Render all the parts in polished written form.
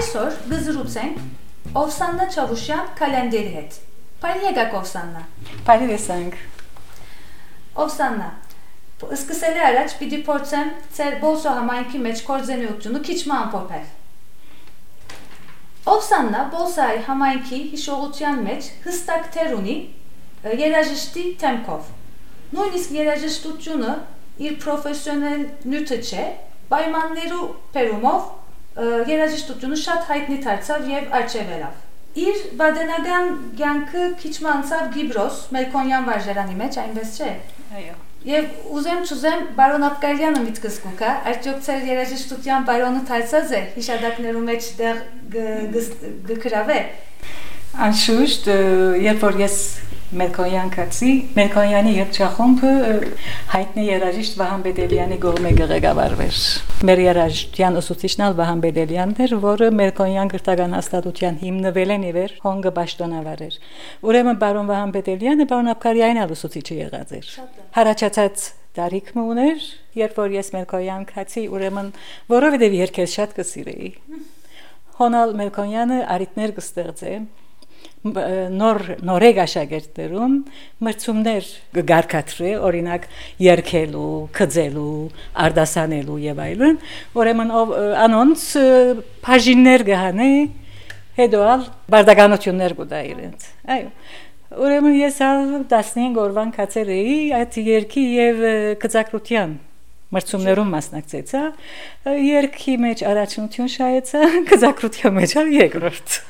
Այսօր գզրուցենք Օվսաննա Չավուշյան կալենդերի հետ։ Բարի եկաք Օվսաննա։ Բարի տեսանք։ Օվսաննա, սկսելի առաջ պիտի փորձեմ ձեր Բոլսո համայնքի մեջ կորձենյությունը քիչ ամփոփել։ Օվսաննա Բոլսայի համայնքի հիշողության մեջ հստակ թեր ունի երաժշտի թեմքով։ Նույնիսկ երաժշտությունը իր պրոֆեսիոնալ նյութը չէ, պայմաններու բերումով երաժշտությունը շատ հայտնի դարձավ եւ արջևելով։ Իր բադենական կյանքը քիչ անցավ Գիբրոս, Մելքոնյան վարժարանի մեջ, այնպես չէ։ Այո։ Եվ ուզեմ բարոն Աբկարյանը միտքս կուքա, արդյոք ծեր երաժշտության բարոնը դարձած է հիշադակներու մեջ դեղ գկրավե։ Անշուշտ, երբ որ ես Մելքոնյան կացի, Մելքոնյանի երգչախումբը հայտնի երաժիշտ Վահան Բեդելյանի կողմէ ղեկավարվեր։ Մեր երաժշտության ուսուցիչն Վահան Բեդելյանն էր, որը Մելքոնյան գրթական հաստատության հիմնվել են իվեր հոնգը պաշտոնավար էր։ Ուրեմն բարոն Վահան Բեդելյանը բարոն Աբկարյանն ուսուցիչը եղած էր։ Հարաճած տարիքն ուներ, երբ որ ես Մելքոնյան կացի, ուրեմն որովհետև երգել շատ կսիրեի։ Հոնալ Մելքոնյանը արիտներ կստեղծե նորեգ աշակերտներուն մրցումներ կգարկադրե, օրինակ երգելու, քծելու, արտասանելու եւ այլն, ուրեմն անոնց բաժիններ կհանե, հետո բարդականություններ կուտա իրենց։ Այո։ Ուրեմն ես 15 օրվան կացել էի այդ երգի եւ քծակրության մրցումներում մասնակցեցա, երգի մեջ առաջնություն շահեցա, քծակրության մեջ երկրորդ։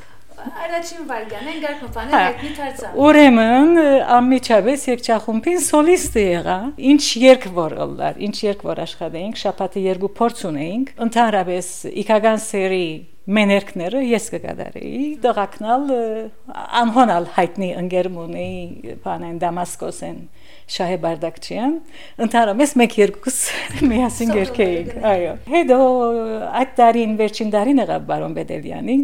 Առաջին վարգան են գարկոփանել հայտնի դարձավ։ Ուրեմն անմիջապես երգչախումբին սոլիստ եղա, ինչ երգ որ ըլլար, ինչ երգ որ աշխատեինք, շաբաթը երկու փորձ ունեինք, ընդհանրապես իքական սերի մեներքները ես կգադարեի, դղակնալ անհոնալ հայտնի ընկերմունեի բանեն Դամասկոսեն Շահե Բարդակչյան, ընդհանրապես մեկ երկուս միասին երգեինք, այո։ Հետո այդ տարին վերջին տարին եղավ բարոն Բեդելյանին,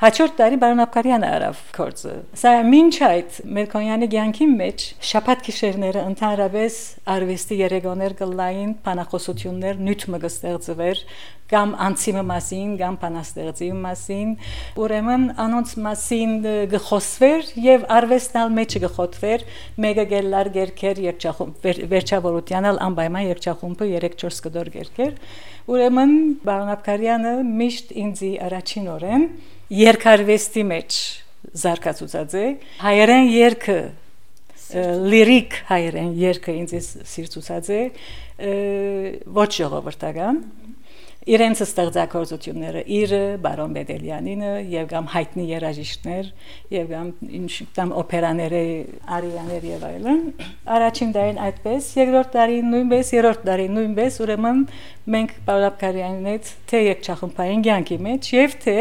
հաջորդ տարի բարոն Աբկարյանը արավ գործը։ Սա մինչ այդ Մելքոնյանի կյանքի մեջ շաբաթ գիշերները ընդհանրապես արվեստի երեկոներ կլային, բանախոսություններ, նյութը կստեղծվեր, կամ անցիմը մասին, կամ բանաստեղծի մասին, ուրեմն անոնց մասին գխոսվեր եւ արվեստալ մեջը գխոթվեր, մեկը գելլար գերքեր երգչախումբ վերջավորությանալ անպայման երգչախումբը 3-4 կդոր գերքեր, ուրեմն բարոն Աբկարյանը միշտ ինձի առաջին օրեն երգարվեստի մեջ զարգացուցած է, հայերեն երգը լիրիկ հայերեն երգը ինձ սիրծուցած է, ոչ ժողովրդական իրենց ստեղծագործությունները իր բարոն Բեդելյանինը եւ կամ հայտնի երաժիշտներ եւ կամ ինչ կամ օպերաները արիաներ եւ այլն առաջին տարին այդպես երկրորդ տարին նույնպես երրորդ տարին նույնպես ուրեմն մենք բարոն Աբկարյանին հետ թե երգչախումբային կյանքի մեջ եւ թե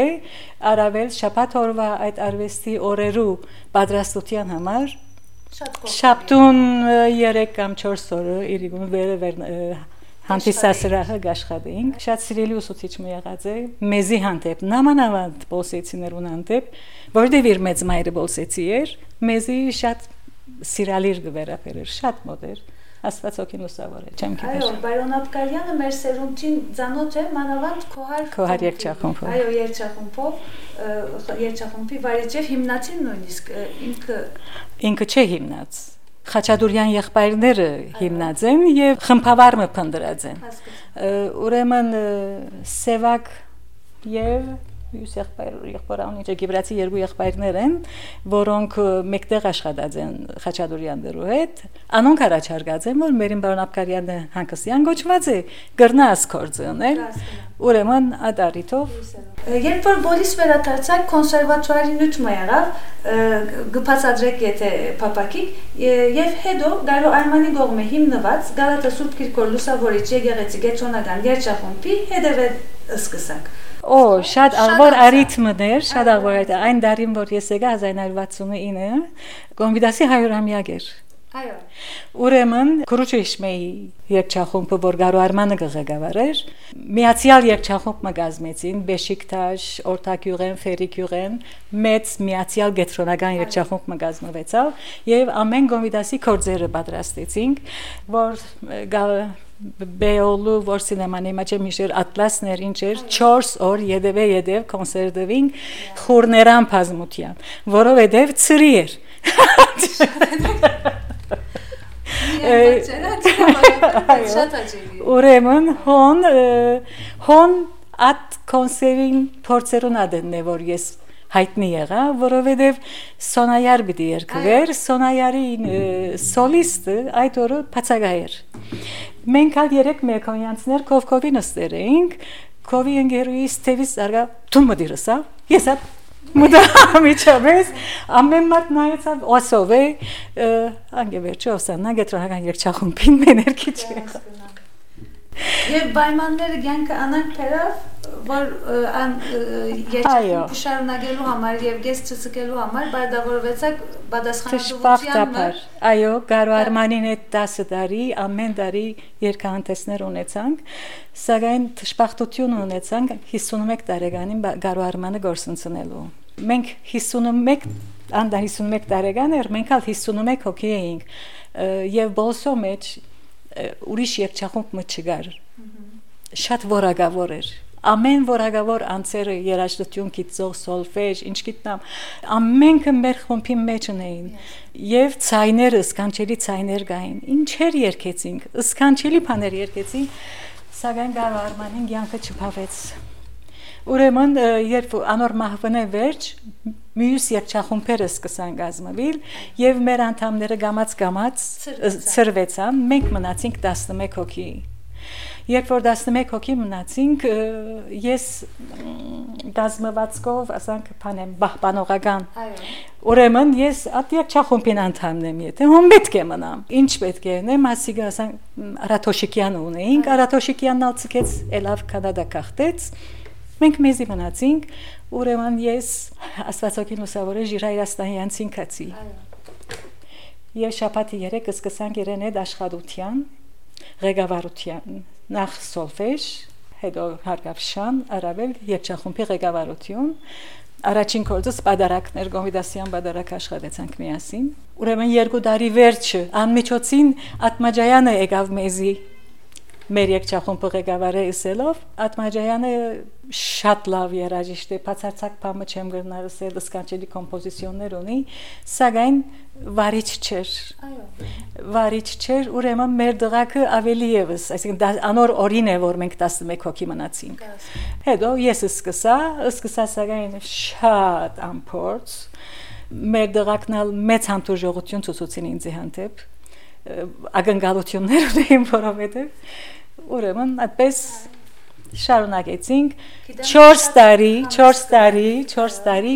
առավել շաբաթ օրվա այդ արվեստի օրերու պատրաստության համար շաբթուն 3 կամ 4 օրը իրիկուն վերը Հանդիսասրահը գաշխատեինք, շատ սիրելի ուսուցիչ մի եղած է, մեզի հանդեպ, նամանավանդ բոլսեցիներուն հանդեպ, որտեղ իր մեծ մայրը բոլսեցի էր, մեզի շատ սիրալիր գվերապեր էր, շատ մոտ էր, Աստված օգին լուսավոր է, չեմ գիտեր։ Այո, բարոն Աբկարյանը մեր սերունդին ծանոթ է, մանավանդ Քոհար երգչախումբով։ Այո, երգչախումբի վարիչև հիմնացին նույնիսկ ինքը չէ հիմնած։ Խաչատուրյան եղբայրները հիմնած են եւ խմբավարը փնդրած են։ Ուրեմն Սևակ եւ յուս եղբայրը Գիբրացի երկու եղբայրներ են, որոնք մեկտեղ աշխատած են Խաչատուրյաններու հետ, անոնք առաջարկած են, որ մերին բարոն Աբկարյանը հանգստյան գոչված է, գրնաս գործը ունել, ուրեմն այդ առիթով Երբ որ բոլիս վերադարձակ կոնսերվատուարի նյութը եղավ, գփածադրեք եթե փապակիկ եւ հետո Գարո Արմանի կողմէ հիմնված Գալատա Սուրբ Կիրկոր Լուսավորիչ եկեղեցի գետրոնական երգչախումբի հետևել սկսակ։ Շատ աղբոր արիթմներ, շատ աղբոր այդ այն դարին որ ես եկա 1969 Կոնվիդասի 100-ամյակ էր։ Այո։ Ուրեմն Քրուչեշմեի երգչախումբը, որ Գարո Արմանը ղեկավարեր, միացյալ երգչախումբ մգազմեցին Բեշիկտաշ, Օրտակյուղեն, Ֆերիկյուղեն, մեծ միացյալ գետրոնական երգչախումբ մգազմվեցավ եւ ամեն գոմիդասի կորձերը պատրաստեցինք, որ Բեոլու որ սինեմանի մեջ միշեր ատլասներ ինչեր 4 օր յետև կոնցերտվին խորներան բազմության, որովհետև ծրի էր։ Ուրեմն հոն at կոնսերին փորձերուն ադեն է որ ես հայտնի եղա, որովհետև Սոնայար պիտի երգվեր, Սոնայարի սոլիստը այդ օրը բացակայեր։ Մենք ալ 3 մեկոնյանցներ կովկովի նստեր էինք, կովի ընկերուհիս թևից արգա դու մդիրսա, ես ատ մուտա միջավես, ամեն մարդ նայեցավ օսով է, անգե վերջը ոսաննա գետրոնական երգչախումբին մեներքի չեղա։ Եվ պայմանները կյանքը անանք թերավ, որ երգչախումբը շարունակելու համար եւ գես չսկելու համար բարդավորվեցակ պատասխանատվության մեջ։ Այո, Գարո Արմանին այդ 10 տարի, ամեն տարի երգահանդեսներ ունեցանք, սակայն դժբախտություն ունեցանք 51 տարեկանին Գարո Արմանը գործընծնելու։ Մենք 51 տարեկան էր, մենք ալ 51 հոգի էինք եւ բոլսո մեջ ուրիշ երգչախումբ չկար։ Շատ որակավոր էր։ Ամեն որակավոր անձերը երաժշտություն գիտող սոլֆեջ, ինչ գիտնամ, ամենքը մեր խումբի մեջ ունեին։ Եվ ցայները, սքանչելի ցայներ կային։ Ինչեր երգեցինք, սքանչելի բաներ երգեցինք, սակայն Գարո Արմանին կյանքը չփավեց։ Ուրեմն երբ անոր մահվնե վերջ մյուս երգչախումբերը սկսան գազմվել եւ մեր անդամները գամած ծրվեցան, մենք մնացինք 11 հոգի։ Երբ որ 11 հոգի մնացինք, ես գազմվածքով, ասենք, բանեմ, բահբանողական։ Ուրեմն ես այդ երգչախումբին անդամն եմ, եթե հոմ պետք է մնամ։ Ինչ պետք է նեմ, ասիկա, ասենք, Արաթոշիկյանը ունեինք, Արաթոշիկյանն ալ ցկեց, ելավ Կանադա կախտեց։ Մենք մեզի մնացինք, ուրեմն ես Աստվածօգին լուսավորե Ժիրայրաստանյանցին կացի։ Եվ շաբաթի 3 սկսանք իրեն այդ աշխատության, ղեկավարության, նախ սոլֆեջ, հետո հարկավշան, առավել երգչախումբի ղեկավարություն, առաջին կորձս պատարակներ, գոմիդասյան պատարակ աշխատեցանք միասին։ Ուրեմն 2 տարի վերջը անմիջոցին Ատմաջայանը եկավ մեզի մեր երգչախումբը ղեկավարը իսելով, Ատմաջայանը շատ լավ երաժիշտ է, բացարձակ բամը չեմ գրնալ ասել, սքանչելի կոմպոզիցիոններ ունի, սակայն վարիչ չէր։ Վարիչ չէր, ուրեմն մեր դղակը ավելի եւս, այսինքն անոր օրին է, որ մենք 11 հոգի մնացինք։ Հետո ես սկսա սակայն շատ ամփորձ, մեր դղակն ալ մեծ հանդուրժողություն ցուցուցին ինձ հանդեպ, ակնկալություններ ունեին, որովհետեւ ուրեմն այդպես շարունակեցինք 4 տարի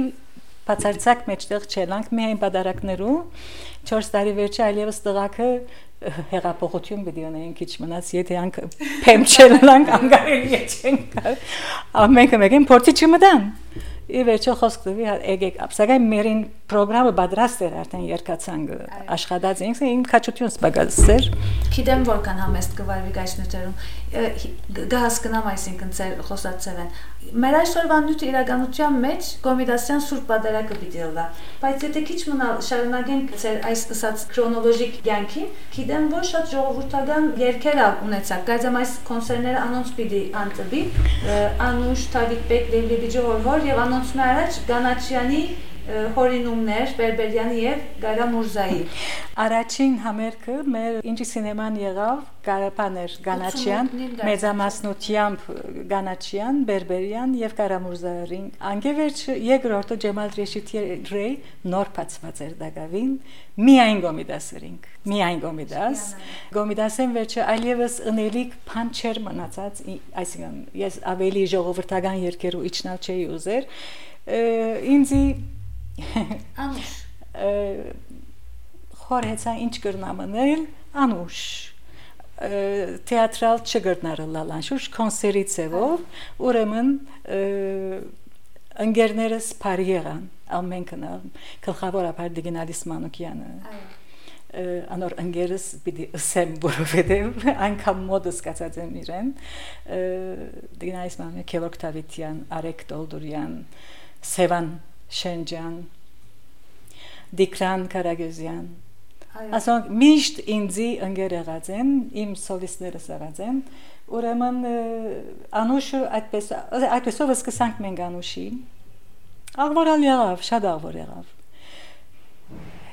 բացարձակ մեջտեղ չելանք միայն պատարակներու 4 տարի վերջը այլևս տղակը հեղափոխություն պիտի ունեին քիչ մնաց եթե անք փեմ չելանք անգարելի չենք ամենքը մեկին փորձի չմտան ի վերջո խոսք տվի եկեք ապսակայն մերին պրոգրամը պատրաստ էր արդեն երկացանք աշխատած ենք իմ քաչություն սպագալսեր գիտեմ որքան համեստ կվարվի գայշնյութերում գահասկնամ այսինքն ծեր խոսացել են մեր այսօրվա նյութ իրականության մեջ կոմիդասյան սուրբ պատարակը պիտի լա բայց եթե քիչ մնալ շարունակենք ծեր այս ասած քրոնոլոգիկ կյանքին գիտեմ որ շատ ժողովրդական երգեր ունեցաք գայձամ այս կոնցերտները անոնց պիտի անտվի Անուշ Թավիթ Լեբիջի հորվոր եւ անոնց առաջ Գանաչյանի հորինումներ Բերբերյանի եւ Գարա Մուրզայի Առաջին համերգը մեր ինչի սինեման եղավ Գարապաներ Գանաչյան մեծամասնությամբ Գանաչյան Բերբերյան եւ Գարա Մուրզային անգևերջ երկրորդը Ջեմալ Ռեշիթի նոր բացված էր դակավին միայն գոմիդասերինք միայն գոմիդասեն վերջը այլևս ընելիք բան չեր մնացած այսինքն ես ավելի ժողովրդական երկերու իջնալ չէի ուզեր ինձի Անուշ խորհեցա ինչ կրնամնել Անուշ թեատրալ չգրնարը լալանշուշ կոնսերի ծևով ուրեմն ընկերներս բարի եղան ամենքն գլխավորապես Դիգինալիս Մանուկյանը անոր ընկերս պիտի ասեմ, որովհետև այնքան մոդս կացած եմ իրեն, դինայս մանե Գևորգ Դավիթյան, Արեգ Տոլդուրյան, Սևան Շենջյան, Դիկրան Կարագոզյան, ասոնք միշտ ինձի ընկեր եղած են, իմ սոլիստներս եղած են, ուրեմն Անուշը այդպեսով սկսանք մենք Անուշի, աղվորալ եղավ, շատ աղվոր եղավ,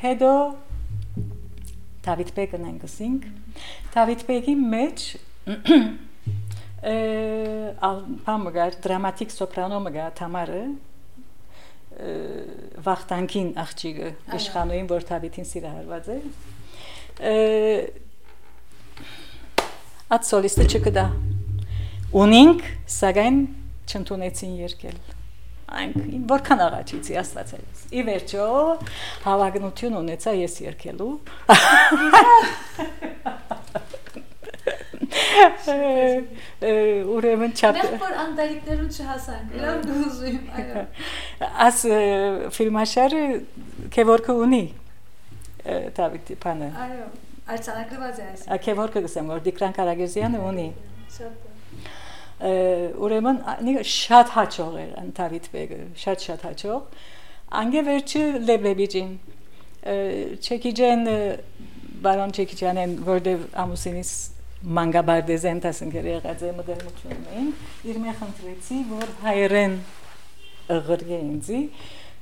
հետո Դավիթ Բեկն ենք ասինք, Դավիթ Բեկի մեջ պամգար, դրամատիկ սոպրանո մգա Թամարը, վախտանքին աղջիկը իշխանուին, որ Դավիթին սիրահարված է, այդ սոլիստը չկդա, ունինք, սակայն չընդունեցին երկել, որքան աղաչիցի աստվածելիս, ի վերջո հավակնություն ունեցա ես երկելու, ուրեմն չափ որ անդալիկներուն չհասանք, իրավ գուզույմ, այո աս ֆիլմաշարը Գևորգը ունի Դավիթի պանը այո, արձանագրված է այս Գևորգը գսեմ, որ Դիկրան Կարագոզյանը ունի ուրեմն շատ հաճող էր Դավիթ Բեկը, շատ հաճող անգե վերջը Լեբլեբիջին Չեկիջեն բարոն Չեկիջյանեն, որտև ամուսինիս մանգաբարդեզեն տասնգեր եղած է մդերմություն էին, իր մե խնդրեցի, որ հայերեն ղրգե ինձի,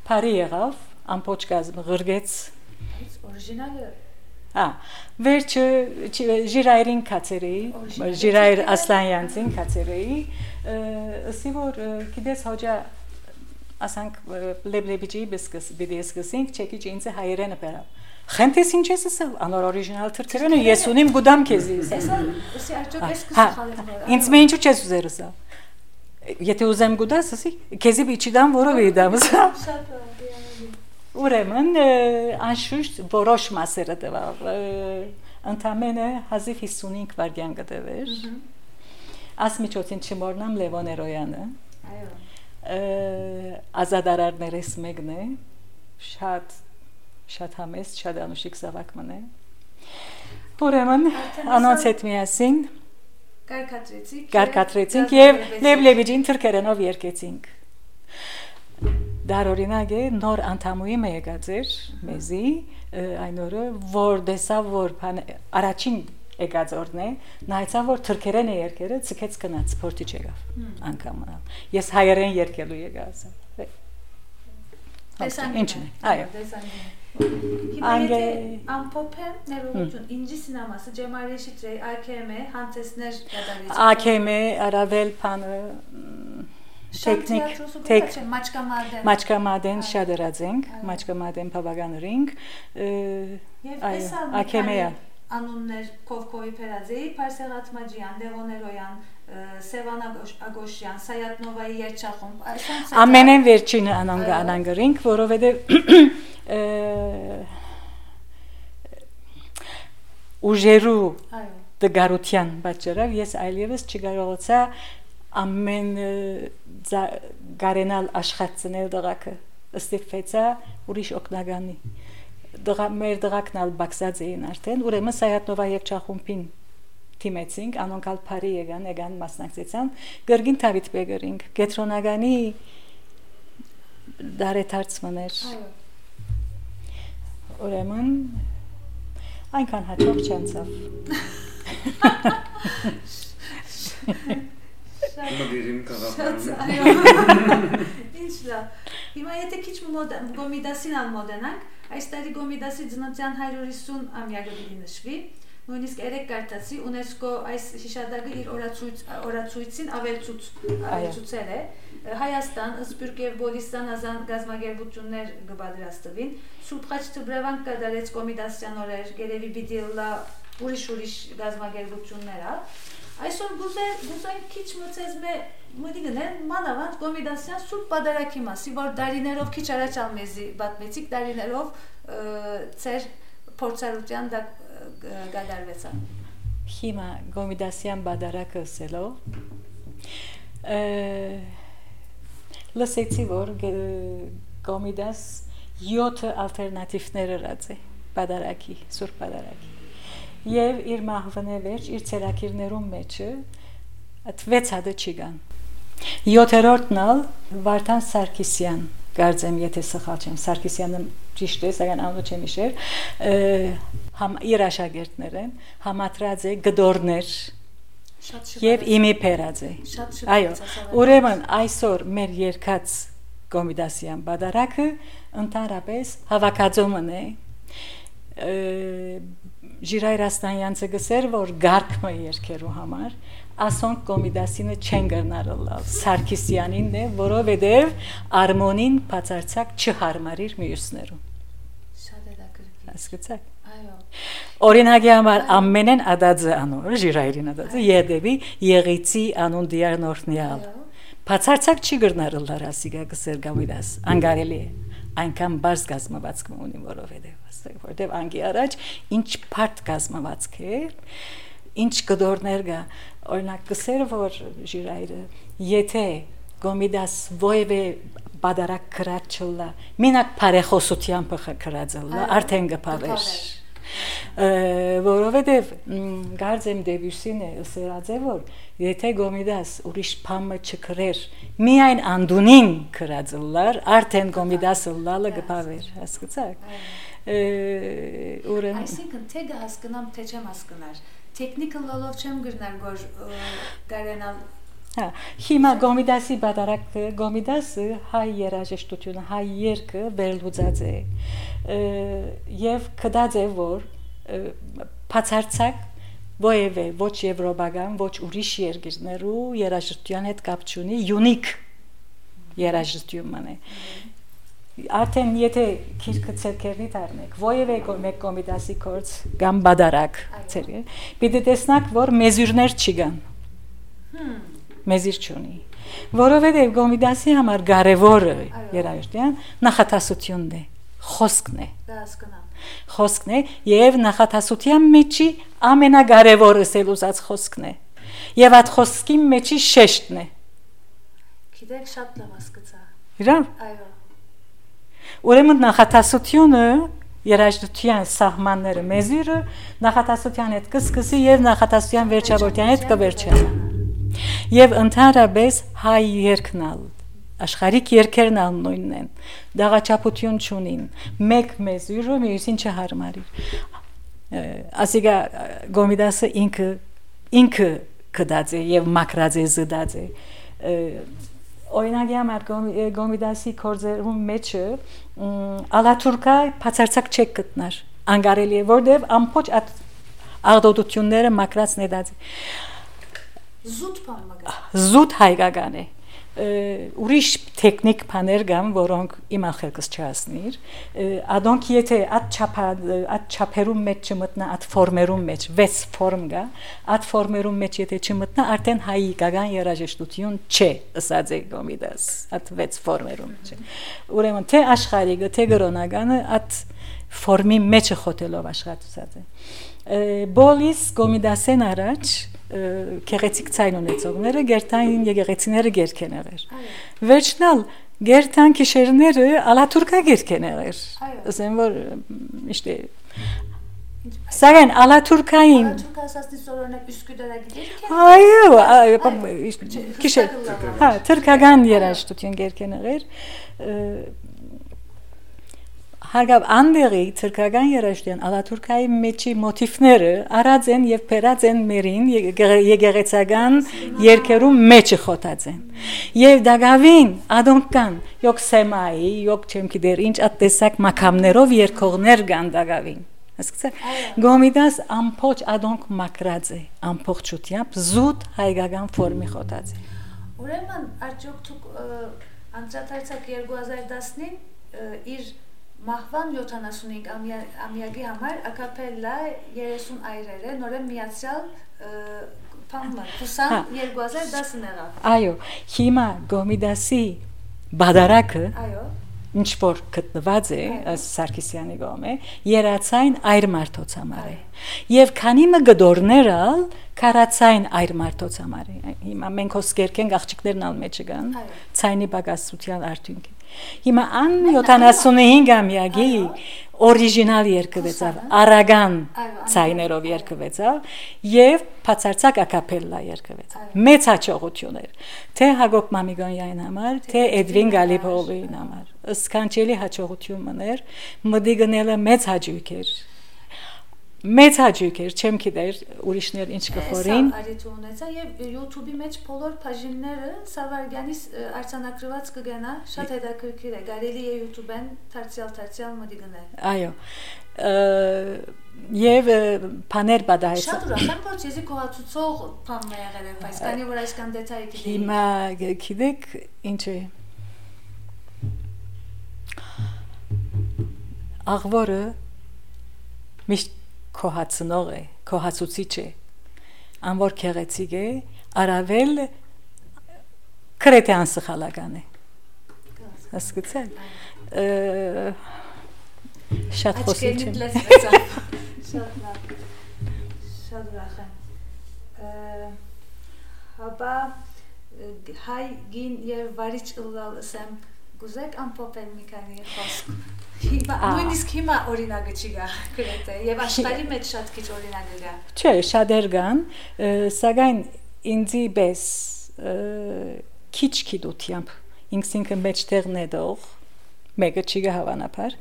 պարի եղավ, ամպոչ կազմ ղրգեց Օրիջինալը վերջը ժիրայրին կացերեի, ժիրայր Ասլանյանցին կացերեի, ասի որ գիտես հոջա ասանք լեբլեբիջի բիդի սկսինք, չեկիչ ինձը հայերենը պերավ Խենտես ինչ ես ասել, անոր օրիջինալ թրքերենը ես ունիմ գուդամ քեզի Ասի արդյոք ես կսխալեմ Ինձ մե ինչու չես ուզեր ասա Եթե ուզեմ գուդաս, ասի, քեզի բիչիդամ որով էի դամ ասա Ուրեմն, անշուշտ որոշ մասերը տվավ Ընդամենը 1055 վարգյան կտվեր Ասմիջոցին չմորնամ Լևոն Էրոյանը Ազադարարներես մեկն է Շատ համեստ, շատ անուշիկ զավակ մնե Ուրեմն, անոնց հետ միասին Կարկատրեցինք և Լեբլեբիջին թրքերենով երկեցինք Դար օրինակ է նոր անդամուի մե եկած էր մեզի այն օրը, որ դեսավ, որ առաջին եկած օրն է նայցավ, որ թրքերեն է երկերը ծկեց կնաց, փորտիչ եկավ անգամ Ես հայերեն երկելու եկա Ինչն է, այո Հիմա եթե ամպոպ է ներողություն, ինջի սինամասը, Ջեմալի Շիտրեի, AKM, հանցեսներ գադարիչ AKM, արավել պանը, տեքնիկ, մաչկամադեն շատ երացենք, մաչկամադեն պավագանրինք, AKM-ը անուններ Կովկովի Պերազեի, Պարսեղատ Մաջյան, Լևոն Էրոյան, Սևան Ագոշյան, Սայատ Նովայի երջախումբ Ամենեն վերջինը անանգրինք, որովհետև ուժերու դգարության պատճառով ես այլևս չկարողացա ամեն գարենալ աշխատցնել դղակը ստիպվեցա ուրիշ օգնագանի մեր դղակն ալ բաքսած էին արդեն ուրեմն Սայատնովա երջախումբին թիմեցինք անոնք ալ փարի եկան մասնակցեցան գրգին Դավիթ Բեկերինք կետրոնագանի դարեթարցմներ ուրեմն այնքան հաջող չանցավ Մոդերին կաղապարում Ինչ լավ Հիմա եթե քիչ գոմիդասին ալ մոդենանք այս տարի գոմիդասի ծննդյան 150 ամյակը պիտի նշվի նույնիսկ երեք կարտացի ՈՒՆԵՍԿՕ այս հիշադակը իր օրացույցին ավելցուցել է Հայաստան, Սփյուռք եւ Բոլիստան ազան գազագերբություններ կպատրաստվին Սուրբ Խաչ Թբրևան կդարեց կոմիդասյան օրեր գերեւի պիտի լա ուրիշ գազագերբություններ Այսօր գուզային քիչ մցեզմե մդիգնեն մանավանդ կոմիդասյան սուրբ պատարակի մասի որ դարիներով քիչ առաջ ալմեզի բատմեցիկ դարիներով ծեր փորձառության դա գադարվեցան Հիմա կոմիդասյան պատարակը ասելով լսեցի որ կոմիդաս 7 ալտերնատիվներ ըրած է բադարակի, սուրբ բադարակի։ Եվ իր մահվնե վերջ, իր ցերակիրներում մեջը այդ 6 հատը չի կան։ 7-րդն ալ Վարդան Սարգսյան, կարծեմ եթե սխալ չեմ, Սարգսյանը ճիշտ է, սակայն անունը չեմ հիշել, իր աշակերտներ են, համատրած է գդորներ եւ իմի փերած է։ Այո, ուրեմն այսօր մեր երկած Կոմիդասյան բադարակը ընդհանրապես հավաքածոմն է Ժիրայր Աստանյանցը գսեր, որ գարկմը երկերու համար ասոնք Կոմիդասինը չեն գնարել Սարգսյանին է, որովհետև արմոնին բացարձակ չհարմարիր մյուսներուն։ Շատ հետաքրքիր։ Հասկացաք։ Այո։ Օրինակի համար ամենեն ադածը անոր Ժիրայրին ադածը Եդեվի Եղիցի անուն դիարնորտնյալ։ Բացարձակ չի գնարել լարասիգա գսեր Կոմիդաս, անգարելի է։ Այնքան բարձ գազմվածք ունի, որովհետև անգի առաջ ինչ բարդ գազմվածք է, ինչ գդորներ կա, օրինակ գսեր որ Ժիրայրը, եթե Կոմիդաս ոևէ բադարակ քրած չլա, մենակ բարեխոսությամբ քրածելա, արդեն գպավեր, որովհետև գարձեմ Դեբյուսին է ասած է որ եթե Կոմիդաս ուրիշ բամը չքրեր, միայն անդունին քրածելար, արդեն Կոմիդասը լալը գպավեր, հասկացաք։ Այսինքն թե հասկանամ, թե չեմ հասկանար, տեխնիկը լոլով չեմ գրնար, որ կարենալ Հիմա Կոմիդասի բադարակը, Կոմիդասը հայ երաժշտությունը, հայ երգը վերլուծած է եւ կդած է որ բացարձակ ոևէ ոչ եվրոպական, ոչ ուրիշ երկրներու երաժշտության հետ կապ չունի, յունիկ երաժշտությունն է։ Արդեն եթե քիրքը ցերկերի դառնեք, ոևէ մեկ Կոմիդասի կորց կամ բադարակ, պիտի տեսնակ որ մեզյուրներ չի կան։ Մեզիր չունի, որովհետև Կոմիդասի համար կարևորը երաժշտության նախատասությունն է, խոսքն է։ Խոսքն է եւ նախատասության մեջի ամենակարևորը սելուզած խոսքն է։ Եվ այդ խոսքի մեջի շեշտն է։ Գիտեք շատ լավ հասկացա։ Իրավ։ Այո։ Ուրեմն նախատասությունը երաժշտության սահմանները մեզիրը նախատասության հետ կսկսի եւ նախատասության վերջավորության հետ կվերջանա։ Եվ ընդհանրապես հայ երկնալ աշխարհիկ երկերն ալ նույնն են դաղաչափություն չունին մեկ մեզյուրը մյուսին չհարմարիր ասիգա Կոմիդասը ինքը կդած է եւ մակրած է զդած է օրինակի համար Կոմիդասի կորձերում մեջը ալաթուրկա բացարձակ չեք գտնար անգարելի է որտեւ ամբողջ աղդոտությունները մակրած նետած Զուտ հայկական է ուրիշ տեխնիկ բաներ կան որոնք իմ ախելքս չհասնիր ադոնք եթե այդ չափերում մեջ չմտնա այդ ֆորմերում մեջ 6 ֆորմ կա այդ ֆորմերում մեջ եթե չմտնա արդեն հայկական երաժշտություն չէ ըսած է Կոմիդաս այդ 6 ֆորմերում չէ ուրեմն թե աշխարհիկը թե գրոնականը այդ ֆորմի մեջը խոթելով աշխատած է բոլիս Կոմիդասեն առաջ Գեղեցիկ ցայն ունեցողները գերտան եկեղեցիները գերքեն եղեր։ Վերջնալ գերտան քիշերները ալաթուրկա գերքեն եղեր։ Ասեմ որ իշտե Սակայն ալաթուրկային ասածնի սորոնակ Üsküdar'a գիտեք։ Այո, քիշեր։ Հա, թուրքական երաժշտություն գերքեն եղեր։ Հարգավ անդերի թուրքական երաժշտության ալաթուրկայի մեջի մոտիվները արած են եւ փերած են մերին եկեղեցական երկերում մեջը խոթած են եւ դակավին ադոնք կան յոք սեմայի յոք չեմ գիտեր ինչ ատտեսակ մակամներով երկողներ կան դակավին հասկացա Կոմիդաս ամբողջ ադոնք մակրած է ամբողջությամբ զուտ հայկական ֆորմի խոթած է ուրեմն արդյոք դուք անդրադարձակ 2010-ին իր Մահվան 75 ամյակի համար ակապելլա 30 այրերը նորեն միացյալ փամը Կուսան 2010-ն եղավ Այո հիմա Կոմիդասի բադարակը այո ինչ որ գտնված է Սարգսյանի գոմե երացային այր մարդոց համար է եւ քանի մը գդորներալ քարացային այր մարդոց համար է հիմա մենք հոսկերքենք աղջիկներն ալ մեջը կան ցայնի բագասության արդյունքի Հիմա ան 75 ամյակի օրիգինալ երգվեցավ, արագան ցայներով երգվեցավ եւ բացարձակ ակապելլա երգվեցավ։ Մեծ հաջողություն էր, թե Հակոբ Մամիկոնյանի համար, թե Էդվին Գալիփոյի համար։ Սքանչելի հաջողություն մներ, մդիգնելը մեծ հաջող էր։ Մեծ հաջող էր, չեմ գիտեր ուրիշներ ինչ կխորին։ Սա արիթ ունեցա եւ YouTube-ի մեջ բոլոր բաժինները Սավարգյանից արձանագրված կգնա, շատ հետաքրքիր է, կարելի է YouTube-ն դարձյալ մդիգնել։ Այո։ Եվ բաներ բադահեց։ Շատ ուրախ եմ, որ ցեզի կողացուցող բան է եղել, բայց քանի որ այսքան դետայ գիտեի։ Հիմա գիտեք ինչ է։ Աղվորը միշտ քոհացնող է, քոհացուցիչ է, անոր քեղեցիկ է, արավել քրետյան սխալական է։ Հասկացա՞լ։ Շատ խոսիչ է։ Շատ լավ։ Շատ ուրախ եմ։ Հաբա հայ գին եւ վարիչ ըլլալսեմ գուզեք ամփոփել մի քանի խոսք։ Նույնիսկ հիմա օրինակը չի գա գրեթե եւ աշխարհի մեջ շատ քիչ օրինակներ կա։ Չէ, շատեր կան, սակայն ինձի պես քիչ դությամբ ինքսինքը մեջտեղ նետող մեկը չի գա հավանաբար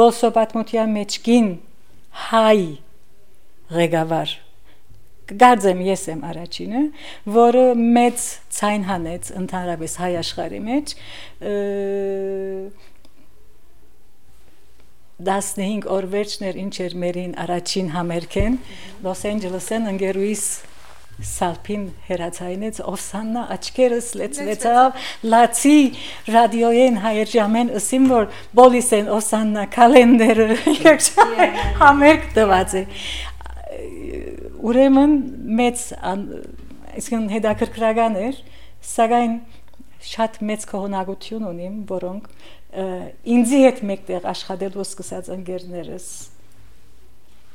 բոլսո պատմության մեջ գին հայ ղեկավար գարձեմ ես եմ առաջինը, որը մեծ ցայն հանեց ընդհանրապես հայ աշխարհի մեջ 15 օր վերջներ ինչ էր մերին առաջին համերգեն Լոս Անջելեսեն ընկերուհիս Սալփին հերացայինեց Օսաննա աչքերս լեցվեցավ լացի ռադիոյեն հայերժամեն ասիմ որ բոլիսեն Օսաննա կալենդերը համերգ տված է ուրեմն մեծ այսինքն հետաքրքրական էր սակայն շատ մեծ կողոնակություն ունիմ որոնք ինձի հետ մեկտեղ աշխատելու սկսած ընկերներս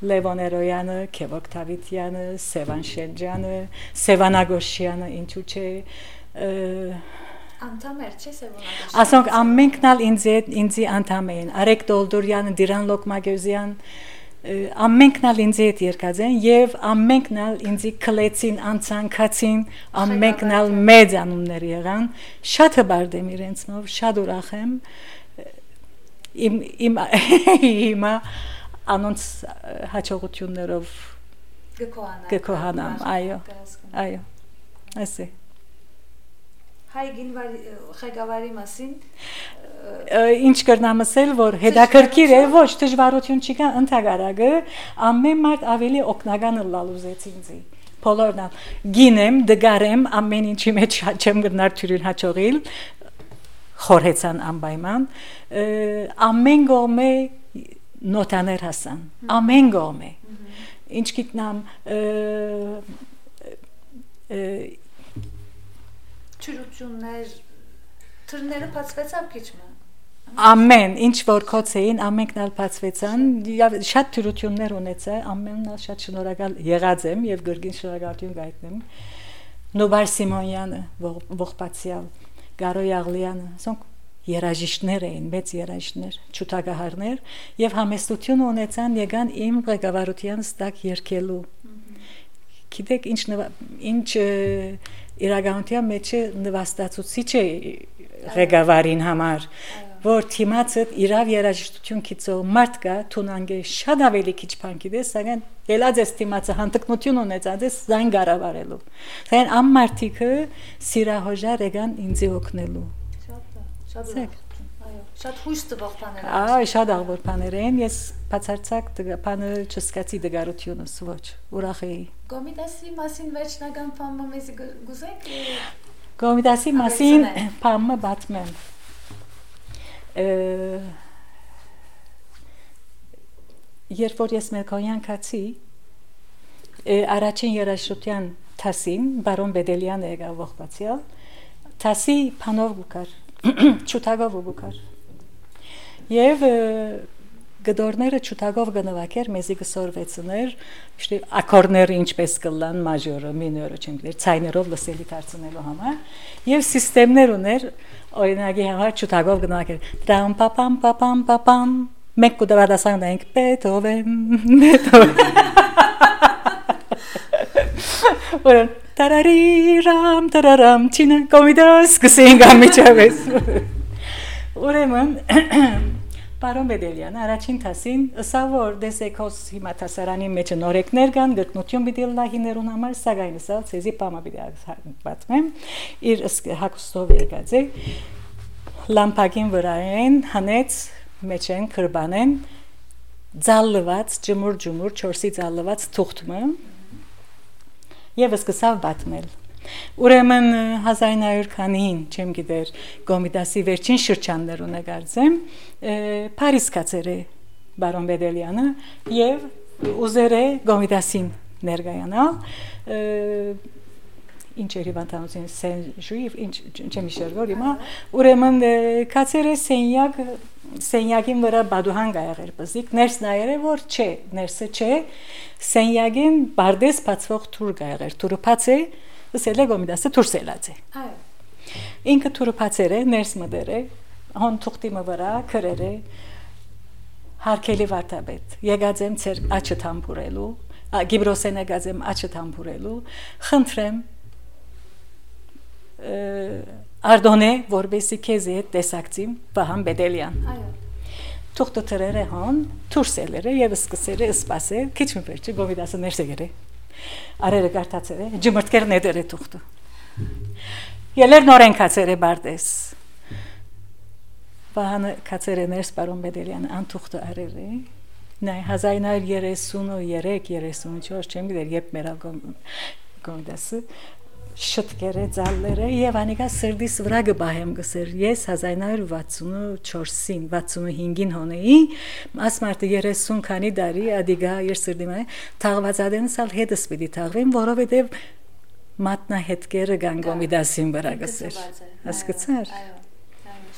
Լևոն Էրոյանը, Քևոք Թավիթյանը, Սևան Շենջյանը, Սևան Ագոշյանը, ինչու՞ չէ անդամ էր չէ Սևան Ագոշյանը ասոնք ամենքն ինձի անդամ էին Արեգ Դոլդորյանը, Դիրան Լոկմագյուզյան ամենքն ալ ինձի հետ երկած են եւ ամենքն ալ ինձի քլեցին անցանկացին ամենքն ալ մեծ անուններ եղան շատ հբարդեմ իրենցնով շատ ուրախ եմ իմ հիմա անոնց հաջողություններով գկոհանամ այո ասե հայ գինվարի ղեկավարի մասին ինչ կրնամ ասել որ հետաքրքիր է ոչ դժվարություն չկա ընդհանրակը ամեն մարդ ավելի օգնական լալուզեց ինձի բոլորն գինեմ դգարեմ ամեն ինչի մեջ չեմ գնար թյուրին հաջողիլ խորհեցան անպայման ամեն գոմե նոտաներ հասան ամեն գոմե ինչ գիտնամ ճրություններ թրները բացվեցավ քիչմը ամեն ինչ որ կոչեին ամենքն ալ բացվեցան շատ թյուրություններ ունեցա ամենն ալ շատ շնորհակալ եղած եմ եւ գրգին շնորհակալություն գայտնեմ Նոբար Սիմոնյանը ողբացյալ Գարոյ Աղլյանը ասոնք երաժիշտներ էին մեծ երաժիշտներ ճուտագահարներ եւ համեստություն ունեցան եկան իմ ղեկավարության ստակ երկելու գիտեք ինչ իրականության մեջ նվաստացուցիչ է ղեկավարին համար որ թիմացը իրավ երաժշտություն քիծող մարդ կա թունանգե շատ ավելի քիչ բան գիտես սակայն ելած է թիմացը հանդգնություն ունեցած է զայն գարավարելու սակայն ամմարտիկը սիրահոժար եկան ինձի օգնելու շատ այո շատ հույս տվող բաներ այո շատ աղբոր բաներ են ես բացարձակ բանը չսկացի դգարությունս ոչ ուրախ էի Կոմիտասի մասին վերջնական բանը մեզ գուզեք Կոմիտասի մասին բանը բացմեմ երբ որ ես Մերկոյան կացի առաջին երաժշտության թասին բարոն Բեդելյանը եկավ ողբացյալ թասի փանով գուկար ճուտագով գուկար եւ գդորները ճուտագով գնվակեր մեզի գսորվեցներ շտի ակորդները ինչպես կլան մաժորը մինորը չեմ գիտեր ցայներով լսելի դարձնելու համար եւ սիստեմներ ուներ օրինակի համար ճուտագով գնվակեր դրամ պապամ պապամ պապամ Մենք կդավադասանք ենք Beethoven Ուրեմն տարարամ չինը կոմիդաս կսենք անմիջապես Ուրեմն Պարոն Բեդելյան առաջին տասին ըսա որ դեսեքոս հիմա տասարանի մեջ նորեկներ կան գտնություն պիտի լա հիներուն համար սակայն ըսա ցեզի պամա պիտի պատմեմ իր հակոստով եկած է լամպակին վրային հանեց մեջ են քրբանեն ձալլված ջմուր 4-ի ձալլված թուղթը եւ սկսավ պատմել Ուրեմն 1900-ին չեմ գիտեր Կոմիտասի վերջին շրջաններուն եկածեմ Փարիզ կացեր է բարոն Բեդելյանը եւ ուզեր է Կոմիտասին ներկայանալ ինչ էր հիվանդանոցին Սեն-Ժուիվ ինչ չեմ հիշել հիմա ուրեմն կացեր է Սենյակին վրա բադուհան գայեր բզիկ ներս նայերը որ չէ ներսը չէ Սենյակին բարդես բացվող թուր գայեր թուրը բաց է Սել է գոմիդասը թուրսելած է այո ինքը թուրը բացեր է ներս մդեր է հոն թուղթի վրա քրեր է հարկելի վարդապետ եկած եմ ծեր աչը թամբուրելու գիբրոսեն եկած եմ աչը թամբուրելու խնդրեմ Ardone որբեսի քեզ հետ տեսակցիմ Վահան Բեդելյան այո թուղթը թրերը հոն թուրսելերը եւ սկսերը սպասել քիչ մվերջի գոմիդասը ներս եկել Արերը գարտացել է ջմրտքեր ներդեր է թուղթը Ելեր նորեն կացեր է բարդես Վահանը կացեր է ներս պարոն Բեդելյան անթուղթը արել է Նայ 1933-34 չեմ գիտեր երբ մեր գոմիդասը շտկերը ձալները եւ անիկա սրդիս վրա գբահեմ գսեր ես 1964-ին 65-ին հոնեի ասմարտը 30 քանի դարի ադիգա իր սրդիմա թաղվածադենսալ հետս պիտի թաղվեմ որովհետեւ մատնահետքերը կան Կոմիտասին վրա գսեր հասկացար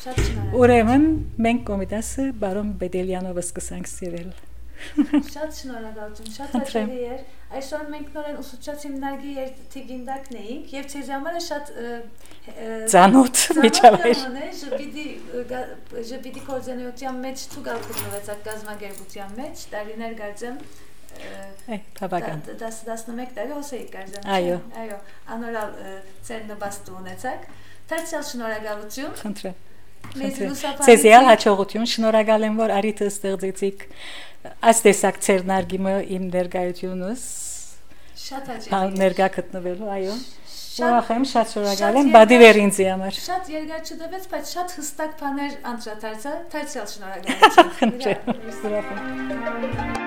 շատ շնորհակալ ուրեմն մենք Կոմիտասը բարոն Բեդելյանով սկսանք սիրել Շատ շնորհակալություն, շատ հաճելի էր։ Այսօր մենք նորեն ուսուցչացիմ նարգի երթիգինդակն էինք եւ ցեզ համար շատ ծանոթ միջավայր ժպիտի կորձենյության մեջ ցուգալ գտնվեցակ գազագերբության մեջ տարիներ գարձեմ բավական 11 տարի հոսեի գարձեմ այո անորալ ծեր նպաստ ունեցակ դարձյալ շնորհակալություն խնդրեմ Ցեզիալ հաջողություն շնորհակալ եմ որ արիթը ստեղծեցիք այս տեսակ ծեր նարգիմը իմ ներկայությունս շատ հաճելի ներկա գտնվելու այո ուրախ եմ շատ շնորհակալ եմ բադիվեր ինձի համար շատ երկար չդվեց բայց շատ հստակ բաներ անդրադարձա դարձյալ շնորհակալություն խնդրեմ ուրախ եմ